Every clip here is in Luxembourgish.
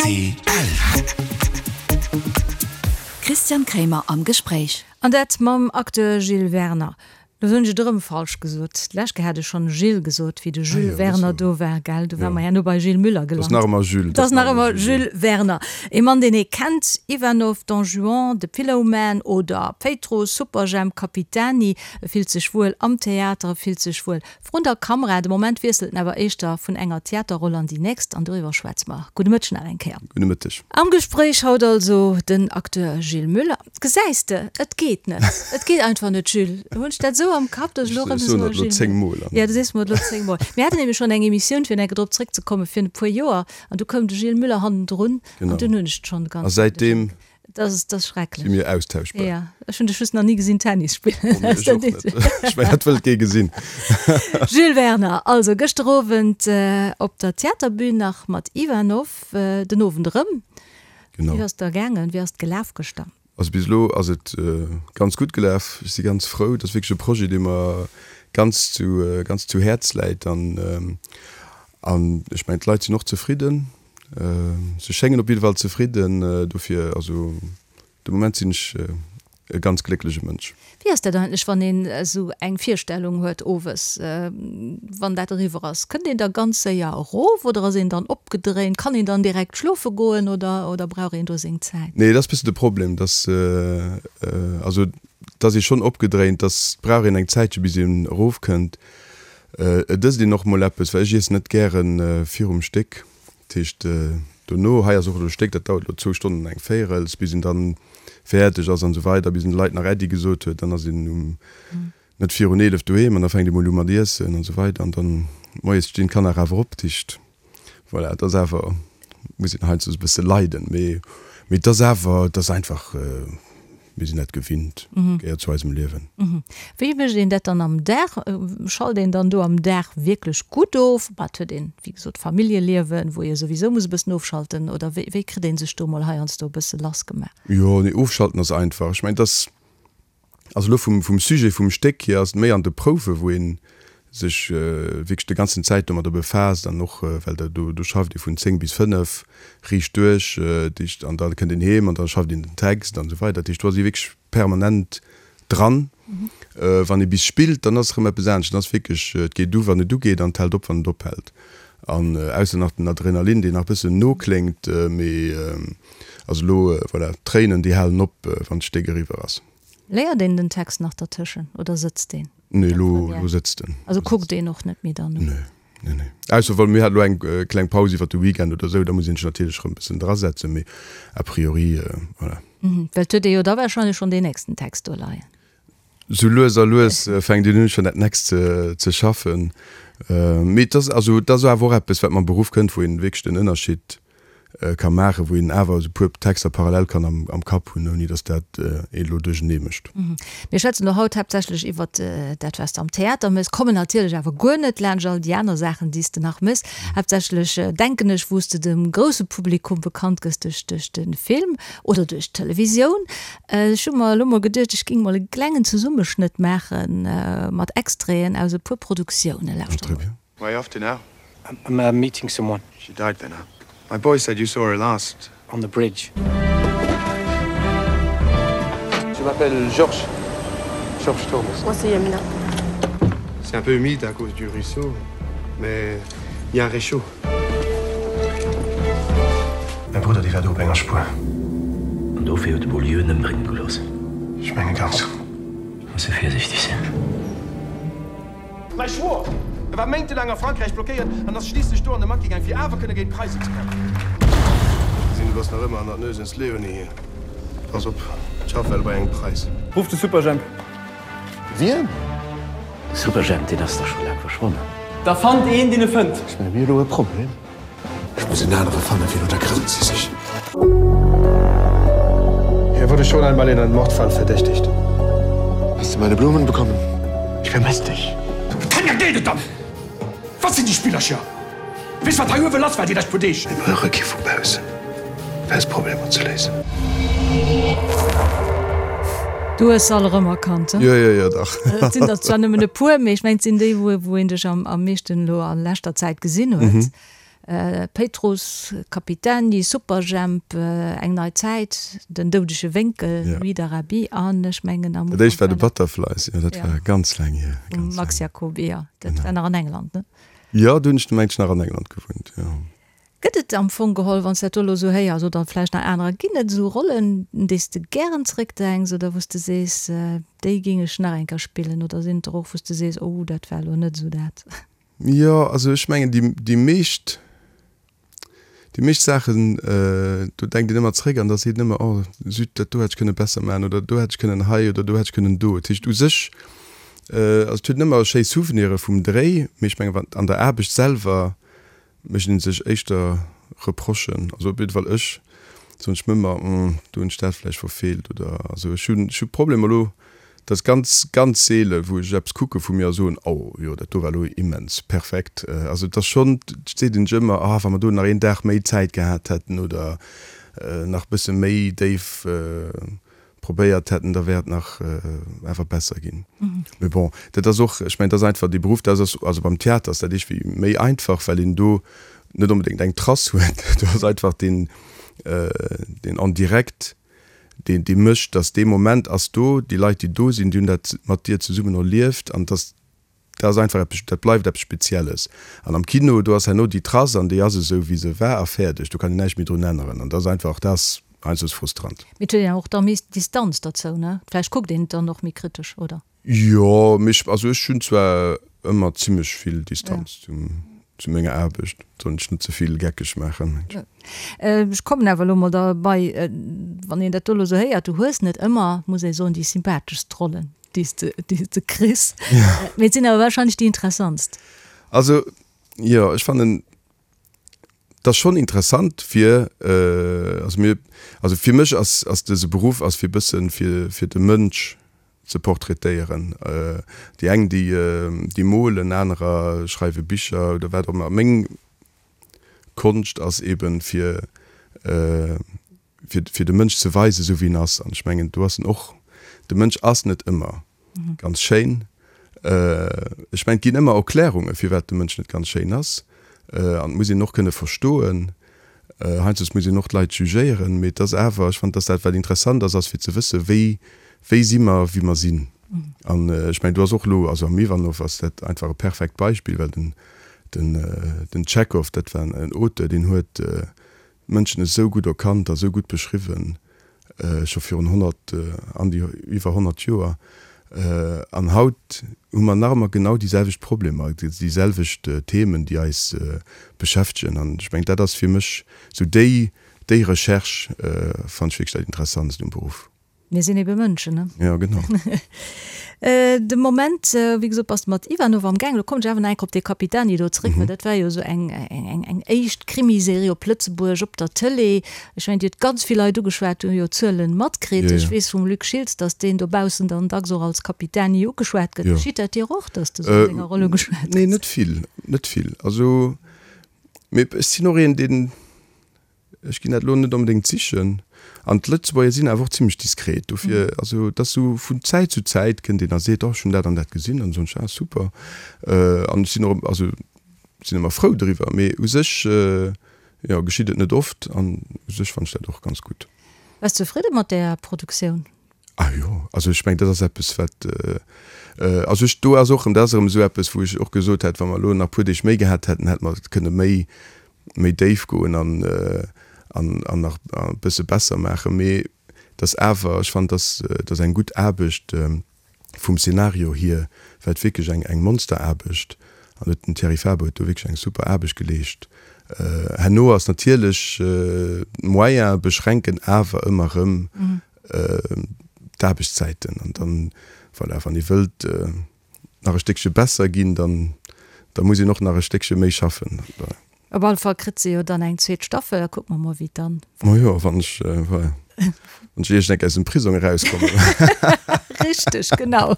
Rtl. Christian Kremer am Gespréich. An dat mam Acteur Gilles Werner. Lo hunn ech et erëm falsch gesot. D'lescht Kéier hat ech schonn Gilles gesot, wéi de Jules Werner do war, gell? Du war mer herno bei Gilles Müller gelant. Et ass nach ëmmer Jules. Et ass nach ëmmer Jules Werner. Ee Mann, deen ee kennt, Ivanov, Don Juan, The Pillowman oder Péitruss, Superjhemp, Capitani. E fillt sech wuel am Theater, e fillt sech wuel Vrun der Kamera, de Moment wiesselt en awer éischter vun enger Theaterroll an déi nächst, an doriwwer schwätze mer. Gudde Mëtteg nach eng Kéier. Gudde Mëtteg. Am Gespréich haut also den Acteur Gilles Muller. Gesäis de, et geet net, et geet einfach net, Jules. Hunn ech dat esou am Kapp, datt ech elo erëm soe Gilles. Ech soen dat elo zéngmol. Jo, du sees mer et elo zéngmol. Mir haten nämlech schonn eng Emissioun, fir nach drop zréckzekommen, virun e puer Joer, an du koum de Gilles Muller hannendrun, an dunn hunn ech et schonn ganz. A säitdeem Dat ass, dat ass schrecklech. Si mir austauschbar. Ja, ech hunn dech just nach ni gesinn Tennis spillen. Oh, nee, ech och net. Ech mengen, dat wëllt kee gesinn. Jules Werner, also gëschter Owend op der Theaterbün nach mat Ivanov, den Owend erëm. Genau. Wéi ass et da gaangen? Wéi ass et gelaf gëschter? Also bis elo ass et ganz gutt gelaf. Ech si ganz frou. Dat ass wierklech e Projet, dee mer ganz zu, ganz zu Häerz läit. An, an ech mengen, d'Leit sinn och zefridden. Se schéngen op jidde Fall zefridden, dofir, also de Moment sinn ech e ganz glécklege Mënsch. Wéi ass dat eigentlech, wann een esou eng Virstellung huet owes, wann dat eriwwer ass? Kënnt een da ganz séier erof oder ass een dann opgedréint? Kann een dann direkt schlofe goen oder oder brauch een do seng Zäit? Nee, dat ass bëssen de Problem, dass, also et ass ee schonn opgedréint, dass brauch een eng Zäitche bis een erofkënnt. Et ësst een och mol eppes, well ech iessen net gären virum Stéck. Dat heescht dono, hei ass och elo e Stéck, dat dauert elo zwou Stonnen an eng Véirels, bis een dann fäerdeg ass an esou weider, bis een de Leit nach Äddi gesot huet, dann ass een um net virun 11 doheem an da fänkt ee mol u mat iessen an esou weider an dann moies stinn d'Kanner awer op. Dat heescht voilà, et ass awer, muss een heiansdo e bësse leiden, mee mee et ass awer, et ass einfach. Mir sinn dat gewinnt, gehéiert zu eisem Liewen. Wéi mécht een dat dann am Dag? Schalt een dann do am Dag wierklech gutt of? Bah, et huet een, wéi gesot, Familljeliewen, wou ee souwisou muss e bëssen ofschalten. Oder wéi, wéi kritt ee sech do mol heiansdo e bësse lass gemaach? Jo, nee, ofschalten ass einfach. Ech mengen, et ass, also elo vum, vum Sujet vum Stéck hier ass et méi an de Prouwe wou ee sech wierklech de ganzen Zäit domadder befaasst an och well der do do schafft ee vun 10 bis 5 riicht duerch, dat heescht an da kënnt een heem an da schafft een den Text an esou weider. Dat heescht do ass ee wierklech permanent dran. Wann ee bis spillt, dann ass erëm eppes anescht, dann ass wierklech, et geet u wann et ugeet an et hält op wann et ophält. An ausser nach den Adrenalin deen nach e bëssen nokléngt, mee also elo voilà, d'Tréinen déi halen op wann d'Stéck eriwwer ass. Léiert een den Text nach dertëschen oder sëtzt deen? Nee, elo, elo sëtzt en. Also kuckt een och net méi dann no? Nee, nee, nee. Ausser wa mir hat elo eng kleng Paus iwwer de Weekend oder esou, da muss een sech natierlech erëm e bëssen drasetzen, mee a priori, voilà. Well et huet ee jo da warscheinlech schonn deen nächsten Text do leien. Sou lues a lues fänkt een un schonn dat nächst ze schaffen. Mee et ass, also et ass awer och eppes, wat mam Beruff kënnt, wou een wierklech den Ënnerscheed ka maachen, wou een awer esou puer Texter parallel kann am Kapp hunn, ouni datt dat een elo duerchenee mécht. Mir schwätzen elo haut haaptsächlech iwwert dat, wat s de am Theater méchs, kommen natierlech awer guer net laanscht all déi aner Saachen, déi s de nach méchs. Haaptsächlech, denken ech, wou s de dem grousse Publikum bekannt gëss duerch duerch de Film oder duerch d'Televisioun. Ech hu mer elo mol geduecht, ech géing mol e klengen Zesummeschnëtt maache mat Extraiten aus e puer Produktiounen. Lauschter mol. Where are you off to now? I'm uh, meeting someone. She died then, huh? My boy said you saw her last. On the bridge. Je m'appelle Georges. Georges Thomas. Moi c'est Yamina. C'est un peu humide à cause du ruisseau, mais il y a un réchaud. Mäi Brudder, dee war do op enger Spuer. An dofir huet de Beaulieu en ëmbrénge gelooss. Ech menge ganz. Muss e virsiichteg sinn. Mäi Schwoer, e war méintelaang a Frankräich blockéiert an ass schliisslech do an de Maquis gaang, fir awer kënne géint d'Preisen ze kämpfen. Ech gesinn, du bass nach ëmmer an der Nues ins Leonie hier. Pass op, d'Schaff well bei engem Preis. Ruff de Superjhemp. Wien? De Superjhemp, deen ass dach scho laang verschwonnen. Da fannt een, deen e fënnt. Ech menge mir elo e Problem. Ech muss en anere fannen, fir no der Grëll ze sichen. Er wurde schon einmal in einem Mordfall verdächtigt. Hast du meine Blumen bekommen? Ich vermisse dich. Tanja, geet et dann? Wat sinn déi Spillercher? Weess wat hei uewe lass war déi lescht puer Deeg? Mir brauche kee vu baussen, fir eis Problemer ze léisen. Du hues se all erëm erkannt, he? Jo, jo, jo, dach. Et sinn der zwar nëmmen e puer, mee ech mengen, et sinn déi, wou een dech am meeschten elo a leschter Zäit gesinn huet. Péitruss, Capitani, Superjhemp, Eng nei Zäit, Den doudege Wénkel, Nuit d'Arabie an ech mengen am Ufank. Dat éischt war de Butterflies, jo, dat war ganz laang hier. Vum Max Jacoby, jo. Dat war nach an England, ne? Jo, do hunn ech, mengen ech, nach an England gewunnt, jo. Gëtt et am Fong geholl, wann s de dat do elo esou héiers, oder vläicht nach anerer, ginn et esou Rollen, un déi s de gären zeréckdenks oder wou s de sees, déi géing ech nach eng Kéier spillen? Oder sinn et der och, wou s de sees, oh, dat war elo net esou dat? Jo, also ech mengen, déi, déi meescht, déi meescht Saachen, do denkt een ëmmer zeréck an da seet een ëmmer, oh zut, dat do hätt ech kënne besser maachen oder do hätt ech kënnen hei oder do hätt ech kënnen do. Dat heescht u sech, also et huet een ëmmer schéi Souvenire vum Dréi, mee ech mengen, an der Aarbecht selwer mécht een sech éischter Reprochen, also op jidde Fall ech, soen ech mir ëmmer, do hunn ech dat vläicht verfeelt oder also ech hunn, ech hu Problemer elo, dat ass ganz, ganz seele wou ech eppes kucke vu mir a soen, oh jo, dat do war elo immens perfekt. Also et ass schonn, et seet een sech ëmmer, ah wa mer do nach een Dag méi Zäit gehat hätten oder nach e bësse méi déif probéiert hätten, da wär et nach awer besser ginn. Mee bon, dat ass och, ech mengen, dat ass einfach dee Beruff, dat ass, also beim Theater ass dat iergendwéi méi einfach, well een do net onbedéngt eng Trace huet. Do ass einfach deen, deen en direct, deen, dee mécht, dass dee Moment ass do, déi Leit, déi do sinn, déi hunn dat mat dir zesummen erlieft an dass, Dat ass einfach eppes, dat bleift eppes Spezielles. An am Kino, do ass herno déi Trace an déi ass esou, wéi se war a fäerdeg. Do kann een näischt méi drun änneren. An dat ass einfach, dat ass heiansdo frustrant. Mee et huet een och da méi Distanz derzou, ne? Vläicht kuckt een et dann och méi kritesch, oder? Jo, mee ech, also ech hunn zwar ëmmer zimlech vill Distanz zum, zu menger Aarbecht. Soll ech net ze vill geckeg maachen. Ech kommen awer elo mol derbei, wann een dat do elo esou héiert, du hues net ëmmer, muss ee soen, déi sympatheschst Rollen. déi s de, déi s de kriss. Ja. Mee et sinn awer wahrscheinlech déi interessantst. Also, jo, ech fannen, et ass schonn interessant fir, also mir, also fir mech ass, ass dëse Beruff ass fir bëssen, fir, fir de Mënsch ze portraitéieren. Déi eng, déi, déi molen, anerer schreiwe Bicher oder wat och ëmmer. Meng Konscht ass eben fir, fir, fir de Mënsch ze weisen, esou wéi en ass. An ech mengen, do ass en och, de Mënsch ass net ëmmer ganz schéin. Ech mengen, et ginn ëmmer Erklärunge firwat de Mënsch net ganz schéin ass. An et muss een och kënne verstoen. Heiansdo muss een och d'Leit jugéieren, mee et ass awer, ech fannen, dass dat wat interessant ass, ass fir ze wëssen, wéi, wéi si mer, wéi mer sinn. An ech mengen, do ass och elo, also am Ivanov ass dat einfach e perfekt Beispill, well den, den, den Tschechow, dat war en Auteur, deen huet, d'Mënschen esou gutt erkannt a sou gutt beschriwwen, scho virun 100, an déi iwwer 100 Joer. An haut hu mer nach ëmmer genau déi selwecht Problemer, déi selwecht Themen, déi eis beschäftegen. An ech mengen, dat ass fir mech esou déi, déi Recherche fannen ech wierklech dat Interessantst um Beruff. Mir sinn ebe Mënschen, ne? Jo, genau. De Moment, wéi gesot, bass de mat Ivanov am Gaang. Lo kommen ech awer nach eng Kéier op dee Capitani do zréck, well dat war jo esou eng, eng, eng éischt Krimiserie op Lëtzebuerg op der Tëlee. Ech mengen, déi huet ganz vill Leit ugeschwat, déi hu jo Zuelen matkritt. Ech weess vum Luc Schiltz, datt deen dobaussen dann dacks och als Capitani ugeschwat gëtt. Geschitt dat dir och, datt s de esou an denger Roll ugeschwat gëss? Nee, net vill, net vill. Also, mee ech sinn och een, deen, Ech ginn dat elo net onbedéngt sichen. An d'Lëtzebuerger sinn awer och zimlech diskret. Dofir, also et ass esou vun Zäit zu Zäit kënnt een a seet, oh ech hunn dat an dat gesinn an soen ech, ah super. An ech sinn och, also sinn ëmmer frou driwwer. Mee u sech, jo, geschitt et net oft an u sech fannen ech dat och ganz gutt. Bass zefridde mat där Produktioun? Ah jo, also ech mengen, dat ass eppes wat, also ech, do ass och erëm, dat ass erëm esou eppes wou ech och gesot hätt, wa mer elo nach e puer Deeg méi gehat hätten, hätte mer kënne méi, méi déif goen an, an, an nach e bësse besser maachen. Mee et ass awer, ech fannen, dass, dass eng gutt Aarbecht vum Szenario hier war et wierklech eng, eng Monsteraarbecht an huet den Thierry Faber huet do wierklech eng super Aarbecht geleescht. Herno ass natierlech d'Moyene beschränken awer ëmmer erëm d'Aarbechtszäiten an dann, voilà, wann ee wëllt nach e Stéckche besser ginn, dann da muss een och nach e Stéckche méi schaffen. Op alle Fall kritt se jo dann eng zweet Staffel, da kucke mer mol wéi et dann. Majo, wann ech, voilà, wann ech iergend eng Kéier aus dem Prisong erauskommen. Richteg, genau.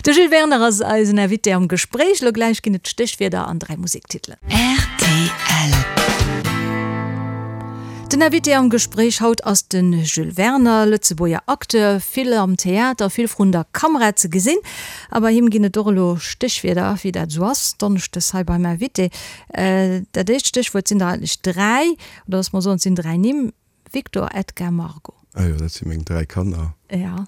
De Jules Werner ass eisen Invité am Gespréich. Elo gläich ginn et d'Stéchwierder an 3 Musektitelen. Rtl. Den Invité am Gespréich haut ass de Jules Werner, Lëtzebuerger Acteur, vill am Theater, vill vrun der Kamera ze gesinn. A bei him ginn et och elo Stéchwierder, wéi dat esou ass, donneschdes hei beim Invité. Dat éischt Stéchwuert sinn der eigentlech 3, oder loosse mer soen, et sinn 3 Nimm, Victor, Edgar, Margot. Ah jo, dat si meng 3 Kanner. Ja.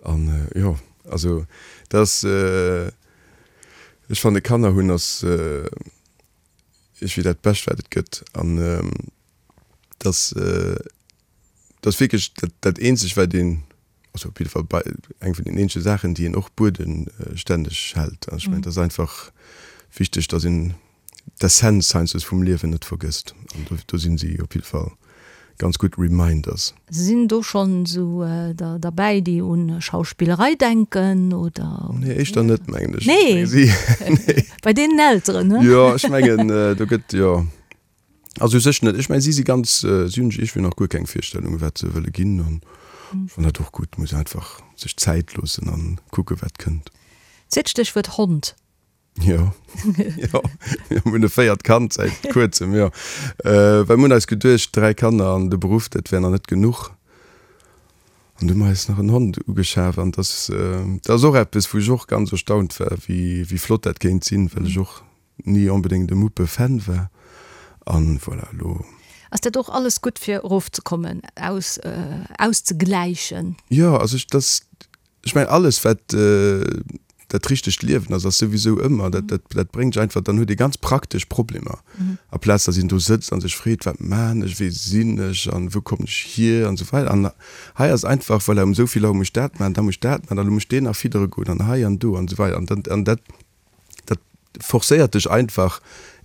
An jo, also dat ass, ech fanne Kanner hunn ass iergendwéi dat Bescht wat et gëtt. An dat ass, dat ass wierklech dat, dat eenzeg wat een, also op jidde Fall bei eng vun den eenzege Saachen déi een och buedenstänneg hält. An ech mengen, dat ass einfach wichteg, datt een d'Essenz heiansdo vum Liewen net vergësst. An do, do sinn si op jidde Fall ganz gutt Reminders. Sinn do schonn esou der derbäi, déi un Schauspillerei denken, oder? Nee, éischter net, mengen ech. Nee? Nee. Bei deenen Elteren, ne? Jo, ech mengen, do gëtt, jo. Also u sech net. Ech mengen, si si ganz, si hunn iergendwéi nach guer keng Virstellung, wat se wëlle ginn. An ech fannen dat och gutt. Muss einfach sech Zäit loossen an kucke wat kënnt. Zweet Stéchwuert, Hond. Jo, jo, mir hunn e véiert Kand säit kuerzem, jo. Well mir hunn eis geduecht, 3 Kanner an de Beruff, dat wär nach net genuch. An du hu mer eis nach en Hond ugeschaf an dat ass, dat ass och eppes, wou ech och ganz erstaunt war, wéi, wéi flott dat kéint sinn, well ech och ni onbedéngt e Muppe-Fan war. An voilà, elo. Ass dat och alles gutt fir erofzekommen, aus, auszegläichen? Jo, also ech, dat, Ech mengen alles wat dat richtegt Liewen ass, ass souwisou ëmmer, dat dat dat bréngt dech einfach, dann huet ee ganz praktesch Problemer, aplaz datt een do sëtzt a sech freet, wat maan ech, wee sinn ech an wou kommen ech hier an esou weider. An hei ass einfach, voilà, um esou vill Auer muss ech dat maachen, da muss ech dat maachen, an elo muss ech deen nach fiddere goen an hei an do an esou weider. An dann an dat dat forcéiert dech einfach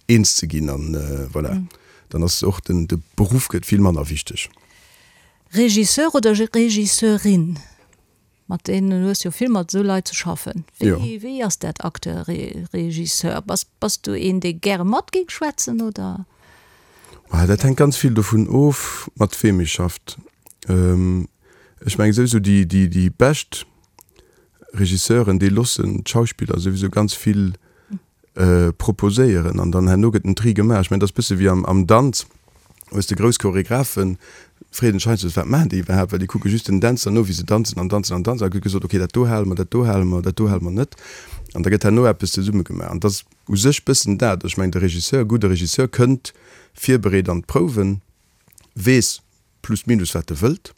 eens ze ginn an voilà, dann ass och den de Beruff gëtt vill manner wichteg. Regisseur oder Regisseurin? Mat deenen hues jo vill mat esou Leit ze schaffen. Wéi, wéi ass dat Acteur, Regisseur? Bass, bass du een, dee gäre mat géing schwätzen oder? Ah, dat hänkt ganz vill dovun of, mat weem ee schafft. Ech mengen souwisou déi, déi, déi bescht Regisseuren, déi loossen d'Schauspiller souwisou ganz vill proposéieren an dann herno gëtt en Tri gemaach. Ech mengen, dat ass e bësse wéi am Danz, hues de grouss Choregraphen, freet een sech heiansdo, wat maachen déi iwwerhaapt, well déi kucke just den Dänzer no, wéi se danzen an danzen an danzen a gëtt gesot, okay, dat do hale mer, dat do hale mer, dat do hale mer net an da gëtt herno eppes zesumme gemaach. An dat ass u sech bëssen dat. Ech mengen, de Regisseur, e gudde Regisseur kënnt virbereet an d'Prouwen, weess, plus minus wat e wëllt.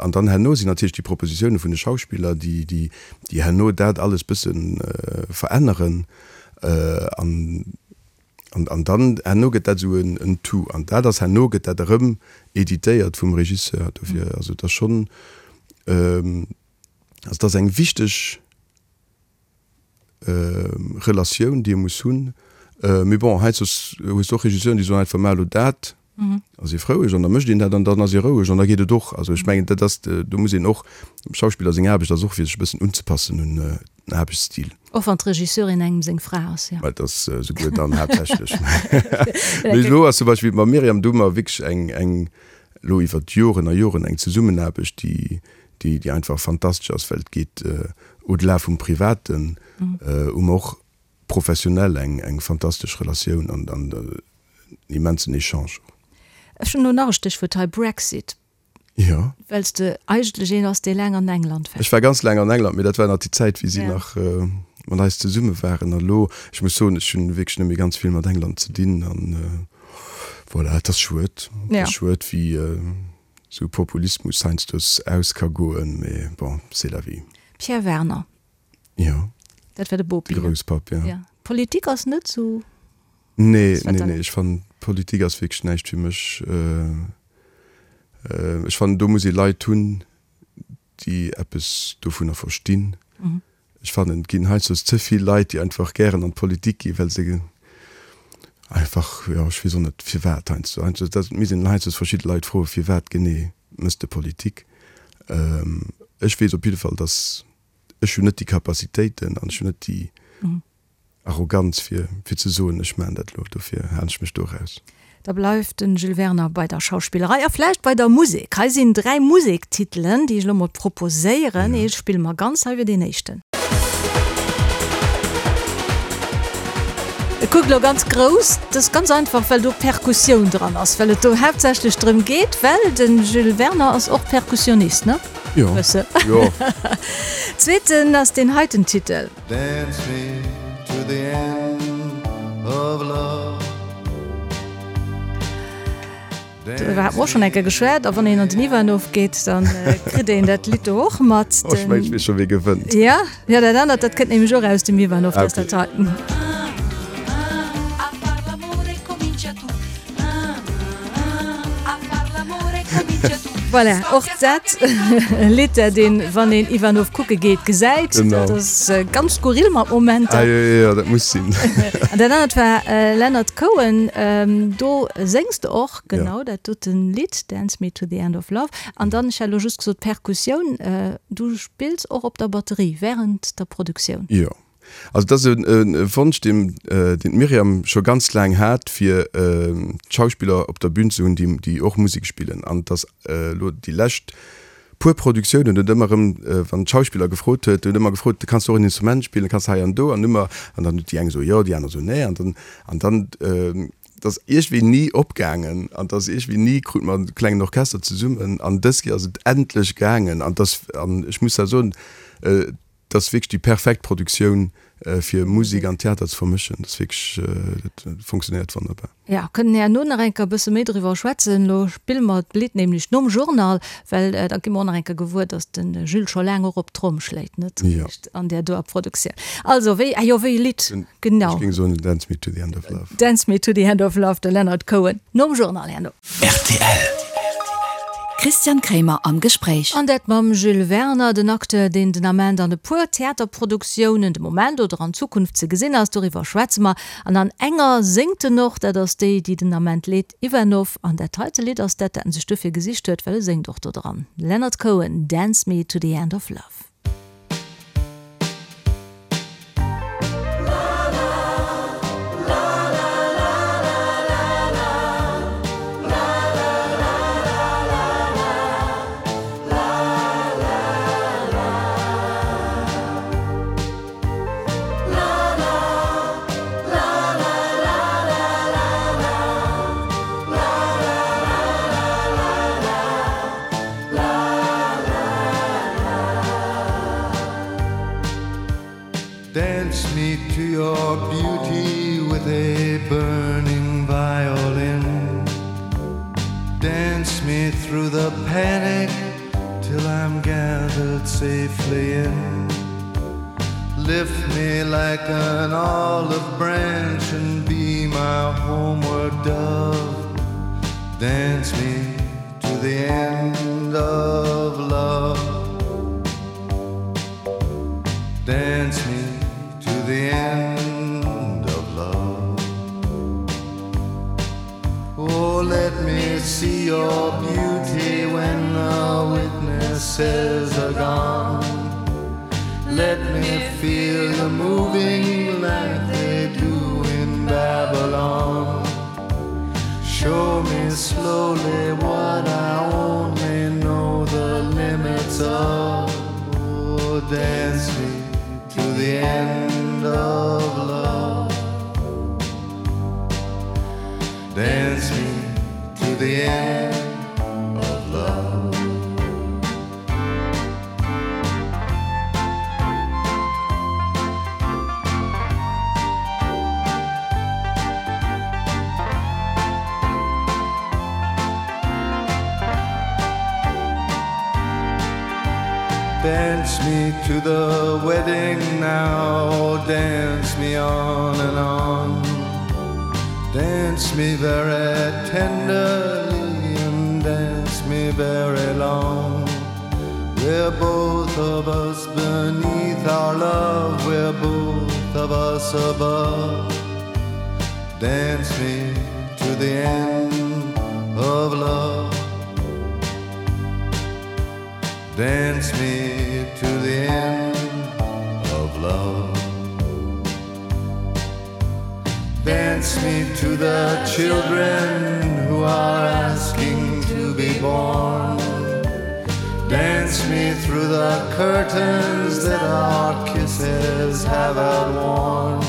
An dann herno sinn natierlech déi Propositioune vun de Schauspiller, déi, déi, déi herno dat alles bësse veränneren. An, an, an dann herno gëtt dat esou en, en Tout. An dat ass herno gëtt dat erëm editéiert vum Regisseur. Dofir, also et ass schonn, also et ass eng wichteg Relatioun, déi ee muss hunn. Mee bon, heiansdo hues de och Regisseuren, déi soen einfach, Maach elo dat, ass ee froueg an da mécht een dat an dann ass ee roueg an da geet et och. Also ech mengen, dat ass, do muss een och, dem Schauspiller seng Aarbecht ass och fir sech e bëssen unzepassen un den Aarbechtsstil. Och wann d'Regisseurin engem seng Fra ass, jo. Mä et ass esouguer dann haaptsächlech. Mee elo ass zum Beispill mam Myriam, do hu mer wierklech eng, eng, elo iwwer Joren a Joren eng Zesummenaarbecht, déi, déi déi einfach fantastesch ass, well et geet au-delà vum Privaten, hu mer och professionell eng eng fantastesch Relatioun an an en immensen Echange och. Ech hunn elo nach e Stéchwuert hei, Brexit. Jo. Well s de eigentlech een ass, dee laang an England war. Ech war ganz laang an England, mee dat war nach déi Zäit, wéi si nach mat eis zesumme waren. A lo, ech muss soen, ech hunn wierklech net méi ganz vill mat England ze dinn an voilà, et ass schued. Et ass schued, wéi Sou Populismus heiansdo aus ka goen, mee bon, c'est la vie. Pierre Werner. Jo. Dat war de Bopi. De Grousspapp, jo. Ja. Politik ass net sou. Nee, nee, nee, ech fannen Politik ass wierklech näischt fir mech. Ech fannen do muss ee Leit hunn, déi eppes dovunner verstinn. Ech fannen, et ginn heiansdo ze vill Leit, déi einfach gären an d'Politik ginn, well se einfach, jo, ech weess och net firwat heiansdo, heiansdo, dat misst een heiansdo verschidde Leit froen, firwat genee mëss de Politik. Ech weess op jidde Fall, datt ech hunn net déi Capacitéiten an ech hunn net déi Arroganz fir fir ze soen, ech maachen dat elo, dofir halen ech mech do eraus. Da bleift den Jules Werner bei der Schauspillerei a vläicht bei der Musek. Hei sinn 3 Musektitelen, déi ech elo mol proposéieren. Ee spille mer ganz, hei wier deen éischten. E kuckt elo ganz grouss. Dat ass ganz einfach, well do Perkussioun dran ass, well et do haaptsächlech drëm geet, well de Jules Werner ass och Perkussionist, ne? Jo. Bësse. Jo. Zweeten ass deen heiten Titel. Dance me to the end of love. Doriwwer hate mer och schonn eng Kéier geschwat. A wann een an den Ivanov geet, da kritt een dat Lidd do och mat. Oh, ech mengen, ech weess scho, wie gewënnt. Ja, ja, dat anert, dat kënnt nämlech och aus dem Ivanov, dat ass dat heiten. Voilà, och dat e Lidd, dat een, wann een Ivanov kucke geet, gesäit. Genau. Dat ass ganz skurril mat Momenter. Ah, jo, jo, jo, dat muss sinn. An dat anert war Leonard Cohen, do séngs de och, genau dat doten Lidd, Dance Me to the End of Love. An dann, ech hat elo just gesot Perkussioun, du spills och op der Batterie während der Produktioun. Jo. Also et ass e Wonsch, deen d'Myriam scho ganz laang hat, fir Schauspiller op der Bün ze hunn, déi och Musek spillen. An et ass elo déi lescht puer Produktiounen huet ëmmer erëm, wann d'Schauspiller gefrot huet, huet ëmmer gefrot, kanns du och en Instrument spillen, kanns du hei an do? An ëmmer, an dann huet déi eng gesot jo, déi aner esou nee. An dann, an dann, et ass iergendwéi ni opgaangen an et ass iergendwéi ni, krute mer e klengen Orchester zesummen. An dës Kéier ass et endlech gaangen an et ass, an ech muss da soen, Et ass wierklech déi perfekt Produktioun fir Musek an Theater ze vermëschen. Dat ass wierklech, dat funktionéiert wonnerbar. Jo, kënnen herno nach eng Kéier e bësse méi driwwer schwätzen. Elo spille mer d'Lidd nämlech nom Journal, well da gi mer och nach eng Kéier gewuer, datt de Jules scho laang och op d'Tromm schléit, net réischt an där doer Produktioun. Also, wéi, ah jo, wéi e Lidd, genau. Ech géing soen Dance Me to the End of Love. Dance Me to the End of Love, de Leonard Cohen, nom Journal herno. Rtl. Christian Kremer am Gespréich. An dat mam Jules Werner, den Acteur, deen den Ament an e puer Theaterproduktiounen de Moment oder an Zukunft ze gesinn ass. Doriwwer schwätze mer. An an enger séngt en och, dat ass déi, déi den Ament leet, Ivanov. An dat heite Lidd ass dat, dat en sech dofir gesicht huet, well e séngt och do dran. Leonard Cohen, Dance Me to the End of Love. Dance me to your beauty with a burning violin Dance me through the panic till I'm gathered safely in Lift me like an olive branch and be my homeward dove Dance me to the end of love Dance me to the end of love Oh let me see your beauty when the witnesses are gone Let me feel the moving like they do in Babylon Show me slowly what I only know the limits of oh, Dance me to the end of love Dance me to the end of love Dance me to the wedding now, dance me on and on. Dance me very tenderly and dance me very long. We're both of us beneath our love, we're both of us above. Dance me to the end of love. Dance me to the end of love. Dance me to the children who are asking to be born. Dance me through the curtains that our kisses have outworn.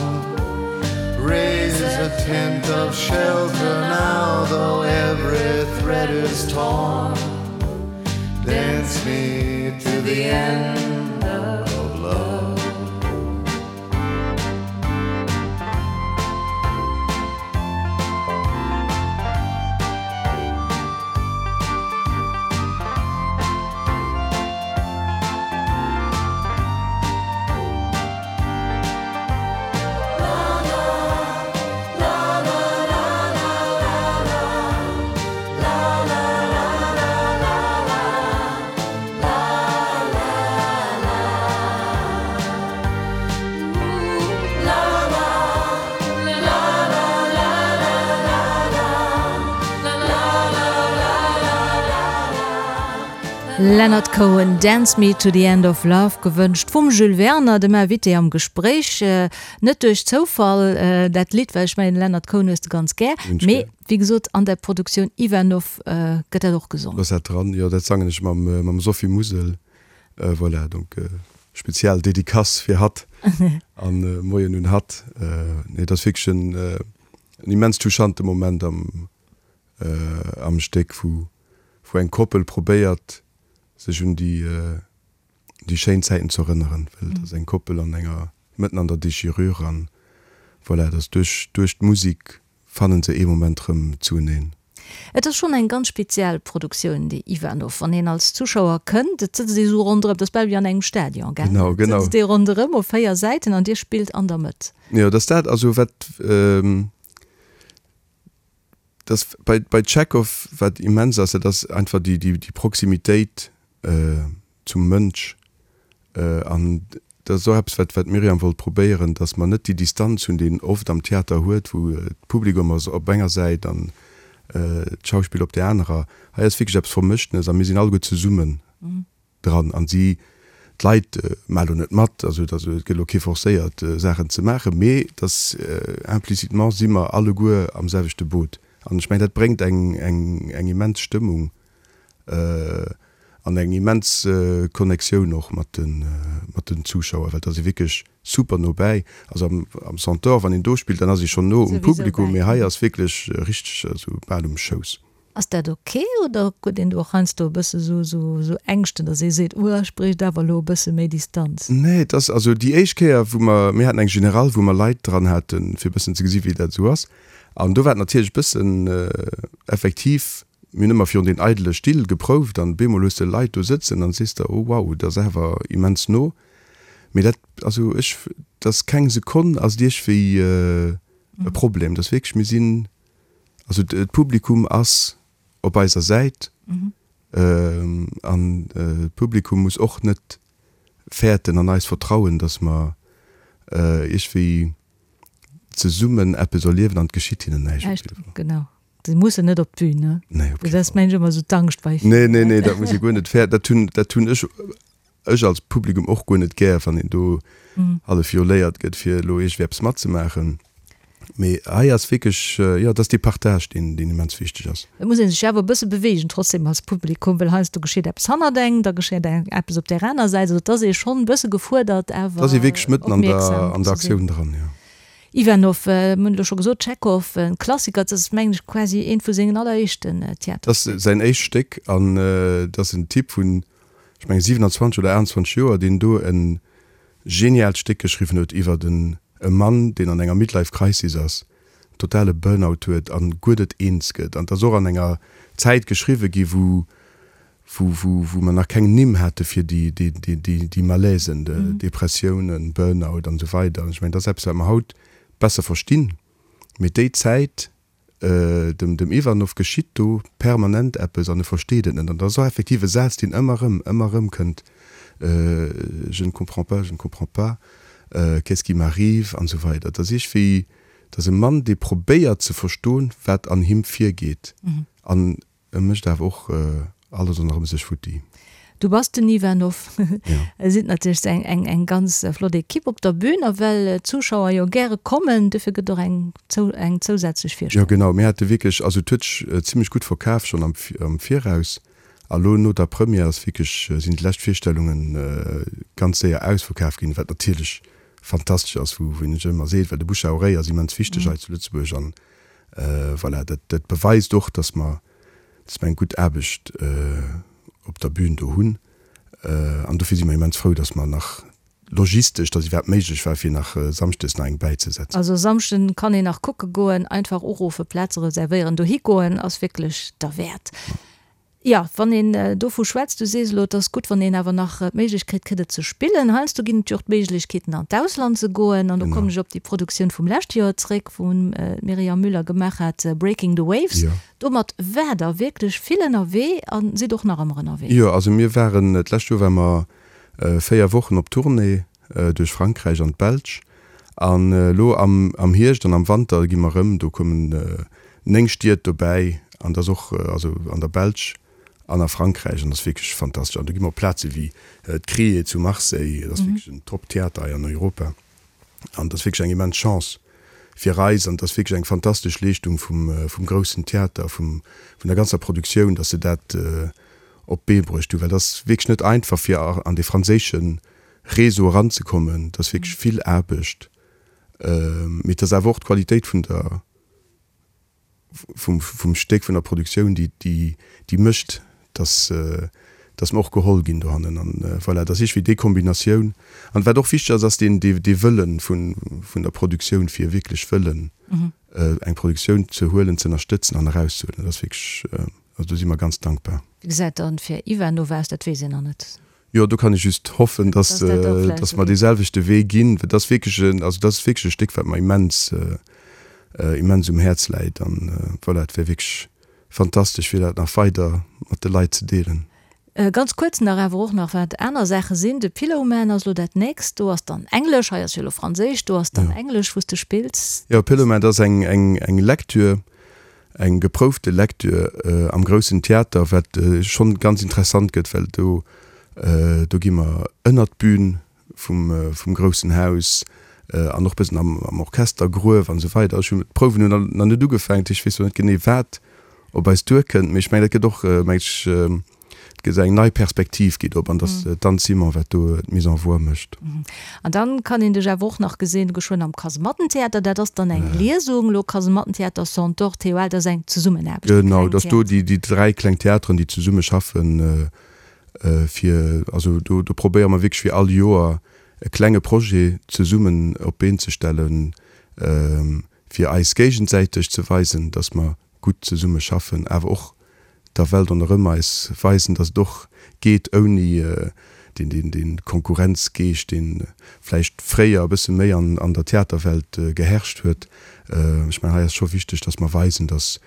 Raise a tent of shelter now, though every thread is torn. Dance me to the end of love. Leonard Cohen, Dance Me to the End of Love, gewënscht vum Jules Werner, dem Invité am Gespréich. Net duerch Zoufall dat Lidd, well ech mengen, Leonard Cohen hues de ganz gär. Mee wéi gesot, an der Produktioun Ivanov gëtt dat och gesongen. Ass dat dran? Jo, dat sangen ech mam Sophie Musel. Voilà, donc spezial Dedicace fir hatt an Moien un hatt. Nee, dat ass wierklech en immens touchante Moment am am Stéck, wou wou eng Koppel probéiert sech un déi déi schéin Zäiten ze erënneren, well et ass eng Koppel an enger mëtten an der Déchirure an voilà, et ass duerch duerch d'Musik fannen se ee Moment rëm zueneen. Et ass schonn eng ganz speziell Produktioun, déi Ivanov. Wann een als Zuschauer kënnt, et sëtzt ee sou ronderëm, et ass bal wéi an engem Stadion, gell? Genau, genau. Et sëtzt ee ronderëm op 4 Säiten an dir spillt an der Mëtt. Jo, et ass dat, also wat. Dass bei, bei Tschechow, wat immens ass, dat ass einfach déi, déi, déi Proximitéit zum Mënsch. An dat ass och eppes, wat, wat d'Myriam wollt probéieren, dass mer net déi Distanz hunn, déi een oft am Theater huet, wou d'Publikum ass op enger Säit an d'Schauspiller op där anerer. Hei ass wierklech eppes Vermëschtenes a mir sinn alleguer zesummen. Dran an si, d'Leit maache lo net mat, also et gëtt elo kee forcéiert Saachen ze maachen, mee et ass implicitement si mer alleguer am selwechte Boot an ech mengen dat bréngt eng eng immens Stëmmung an eng immens Connectioun och mat de mat den Zuschauer, well et ass ee wierklech super no bäi. Also am am Centaure wann een do spillt, dann ass ee schonn no um Publikum, mee hei ass wierklech richteg esou bal um Schouss. Ass dat ok oder huet een do och heiansdo e bësse sou sou Ängschten, datt ee seet, uh ech bréicht awer elo e bësse méi Distanz? Nee, et ass also déi éischt Kéier wou mer, mir haten eng Generale wou mer Leit dran haten, fir e bëssen ze gesi wéi dat esou ass an do war et natierlech e bëssen effektiv, mir hunn ëmmer virun den eidele Still geprouft an bemol hues de Leit do sëtzen an sees der, oh wow, dat ass awer immens no. Mee dat, also ech, et ass keng Sekonn ass et iergwéi e Problem, et ass wierklech, mir sinn Also d'Publikum ass op eiser Säit an d'Publikum muss och net fäerten an eis vertrauen, datt mer iergwéi zesummen eppes erliewen an et geschitt hinnen näischt. Genau, se mussen net op d'Bün, ne? Nee, op kee Fall. Dat ass mengen ech ëmmer esou d'Angscht bei ville. Nee, nee, nee, dat muss ee guer net fäerten. Dat hunn, dat hunn ech ech als Publikum och guer net gär, wann een do hallef violéiert gëtt, fir elo iergendwéi eppes matzemaachen. Mee hei ass wierklech, jo, et ass dee Partage, deen, deen immens wichteg ass. Et muss ee sech awer e bësse beweegen trotzdem als Publikum, well heiansdo geschitt eppes hannert engem, da geschitt eppes op där aner Säit. Also et ass ee schonn e bësse gefuerdert, awer Et ass ee wierklech mëtten an der, an der opmierksam ze sinn. Aktioun dran, jo. Ivanov, mir hunn elo scho gesot, Tschechow, en Klassiker, dat ass mengen ech quasi eent vu sengen alleréischten Theaterstécker. Dat ass säin éischt Stéck an et ass en Typ vun, ech mengen 27 oder 28 Joer, deen do e geniaalt Stéck geschriwwen huet iwwert en e Mann, deen an enger Midlife Crisis ass, totale Burnout huet an guer net eens gëtt. An et ass och an enger Zäit geschriwwe gi wou wou wou wou mer nach keng Nimm hate fir déi déi déi déi déi Malaisen, Depressiounen, Burnout an esou weider. An ech mengen, dat ass eppes wat mer haut besser verstinn, mee déi Zäit, Dem dem Ivanov geschitt do permanent eppes an e versteet et net. An dat ass och effektiv e Saz, deen ëmmer erëm, ëmmer erëm kënnt, Je ne comprends pas, je ne comprends pas, qu'est-ce qui m'arrive an esou weider. Et ass iergwéi, et ass e Mann, dee probéiert ze verstoen, wat an him virgeet. An E mécht awer och alles ronderëm sech futti. Du bass den Ivanov. Et sinn natierlech eng eng eng ganz flott Ekipp op der Bühn a well d'Zuschauer jo gäre kommen, dofir gëtt och eng eng zousätzlech Virstellung. Jo genau, mir hate wierklech, also et huet sech zimmlech gutt verkaf schonn am am Viraus a lo no der Première ass wierklech, sinn déi lescht Virstellunge ganz séier ausverkaf ginn, wat natierlech. fantastesch ass, wou wou een ech ëmmer seet, well de Bouche à oreille ass immens wichteg hei zu Lëtzebuerg an voilà, dat dat beweist och, dass mer dass mer eng gutt Aarbecht op der Bühn do hunn an dofir si mer immens frou, dass mer nach logistesch, dass iwwerhaapt méiglech war, fir nach samschdes nach eng bäizesetzen. Also Samschden kann een nach kucke goen, einfach uruffen, Plaze reservéieren, dohi goen ass wierklech derwäert. Jo, wann een dovu schwätzt, du sees elo, et ass gutt, wann een awer nach d'Méiglechkeet kritt, et ze spillen. Heiansdo ginn et jo och d'Méiglechkeeten, an d'Ausland ze goen. An do kommen ech op déi Produktioun vum leschte Joer zréck, wou d'Myriam Müller gemaach hat, Breaking the Waves. Domat waart Der wierklech vill ënnerwee a sidd och nach ëmmer ënnerwee. Jo, also mir waren, d'lescht Joer ware mer 4 Wochen op Tournée duerch Frankräich an d'Belsch. An elo am Hierscht an am Wanter gi mer erëm, do kommen 9 Stied dobäi an dat ass och also an der Belsch an a Frankräich an dat ass wierklech fantastesch. An do gi mer op Plaze wéi d'Crié zu Marseille, dat ass wierklech en Top-Theater hei an Europa an dat ass wierklech eng immens Chance fir eis an dat ass wierklech eng fantastesch Leeschtung vum groussen Theater, vum vun der ganzer Produktioun, datt se dat op d'Bee bruecht hunn, well dat ass wierklech net einfach fir an dee franséische Réseau eranzekommen. Dat ass wierklech vill Aarbecht, mee et ass awer och d'Qualitéit vun der, vum, vum Stéck, vun der Produktioun, déi, déi, déi mécht, dass, dass mer och geholl ginn dohannen. An voilà, et ass iergendwéi déi Kombinatioun. An wat och wichteg ass, ass deen, dee, dee Wëllen vun, vun der Produktioun, fir wierklech wëllen eng Produktioun ze huelen, ze ënnerstëtzen an erauszehuelen. Dat ass wierklech, also do si mer ganz dankbar. Wéi gesäit dann fir Ivanova aus? Dat weess een nach net. Jo, do kann ech just hoffen, dass, dass mer dee selwechte Wee ginn. Dat ass wierklech en, also dat ass wierklech e Stéck, wat mer immens, immens um Häerz läit. An voilà, et wär wierklech fantastesch, fir dat nach weider mat de Leit ze deelen. Ganz kuerz nach awer och nach, wat aner Saache sinn. De Pillowman ass elo dat nächst. Do ass dann Englesch, hei ass jo elo Franséisch, do ass dann Englesch, wou s de spills. Jo, Pillowman, dat ass eng, eng, eng Lecture, Eng geproufte Lecture am groussen Theater, wat schonn ganz interessant gëtt, well do do gi mer ënnert d'Bün vum vum groussen Haus an och bëssen am am Orchestergruef an esou weider. Ech hunn d'Prouwen hunn nach net ugefaangen, dat heescht ech weess nach net genee wat op eis duerkënnt, mee ech mengen dat gëtt och meng ech Et gëtt eng nei Perspektiv geet op an dass d'Anne Simon wat do d'Mise en voix mécht. An dann kann een dech awer och nach gesinn geschwënn am Kasemattentheater. Dat ass dann eng Liesung elo, Kasemattentheater, Centaure, TOL, dat ass eng Zesummenaarbecht. Genau, dass do déi déi 3 kleng Theateren déi zesumme schaffen fir, also do do probéiere mer wierklech fir all Joer e klenge Projet zesummen op d'Been ze stellen, fir eis géigensäiteg ze weisen, dass mer gutt zesumme schaffen, awer och der Welt ronderëm eis weisen, datt et och geet ouni dee Konkurrenzgeescht, dee vläicht fréier e bësse méi an der Theaterwelt geherrscht huet. Ech mengen, hei ass scho wichteg, datt mer weisen, datt,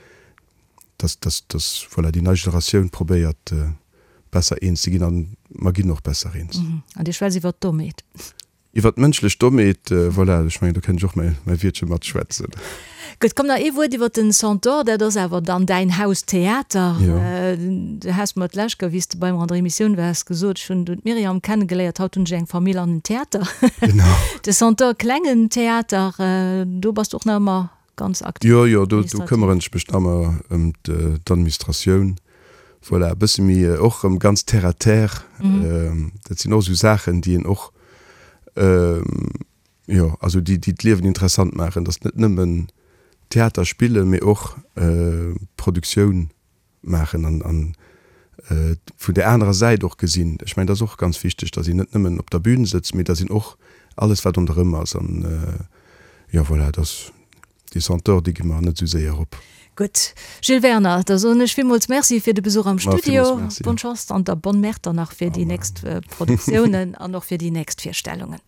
datt, voilà, déi nei Generatioun probéiert besser eens ze ginn, a mer ginn och besser eens. An Dir schwätzt iwwer d'Dommheet. Iwwer d'mënschlech Dommheet, voilà, ech mengen, do kënnt ech och mäi Wiertche matschwätzen. Gutt, komm nach ee Wuert iwwer den Centaure, dat ass awer dann däin Haustheater. Jo. Du has mer d'lescht Kéier, wéi s de bei mer an der Emissioun waars, gesot, ech hunn du d'Myriam kennegeléiert, haut hunn ech eng Famill an en Theater. Genau. De Centaure, klengen Theater, do bass du och nach ëmmer ganz aktiv. Jo, jo, do, do këmmeren ech mech nach ëmmer ëm d'Administratioun. Voilà, e bësse méi och erëm ganz terre à terre. Dat sinn och esou Saachen, déi een och, jo, also déi, déi d'Liewen interessant maachen, dass net nëmmen Theater spillen, mee och Produktioun maachen an, an vun där anerer Säit och gesinn. Ech mengen, dat ass och ganz wichteg, dass een net nëmmen op der Bühn sëtzt, mee dass een och alles, wat ronderëm ass an, jo, voilà, dass Déi Senteur, déi gi mer net esou séier op. Gutt, Gilles Werner, da soen ech villmools Merci fir de Besuch am Ma, Studio. villmools Merci. Bonne Chance an der Bonne Mère dann nach fir déi nächst Produktiounen an och fir déi nächst Virstellungen.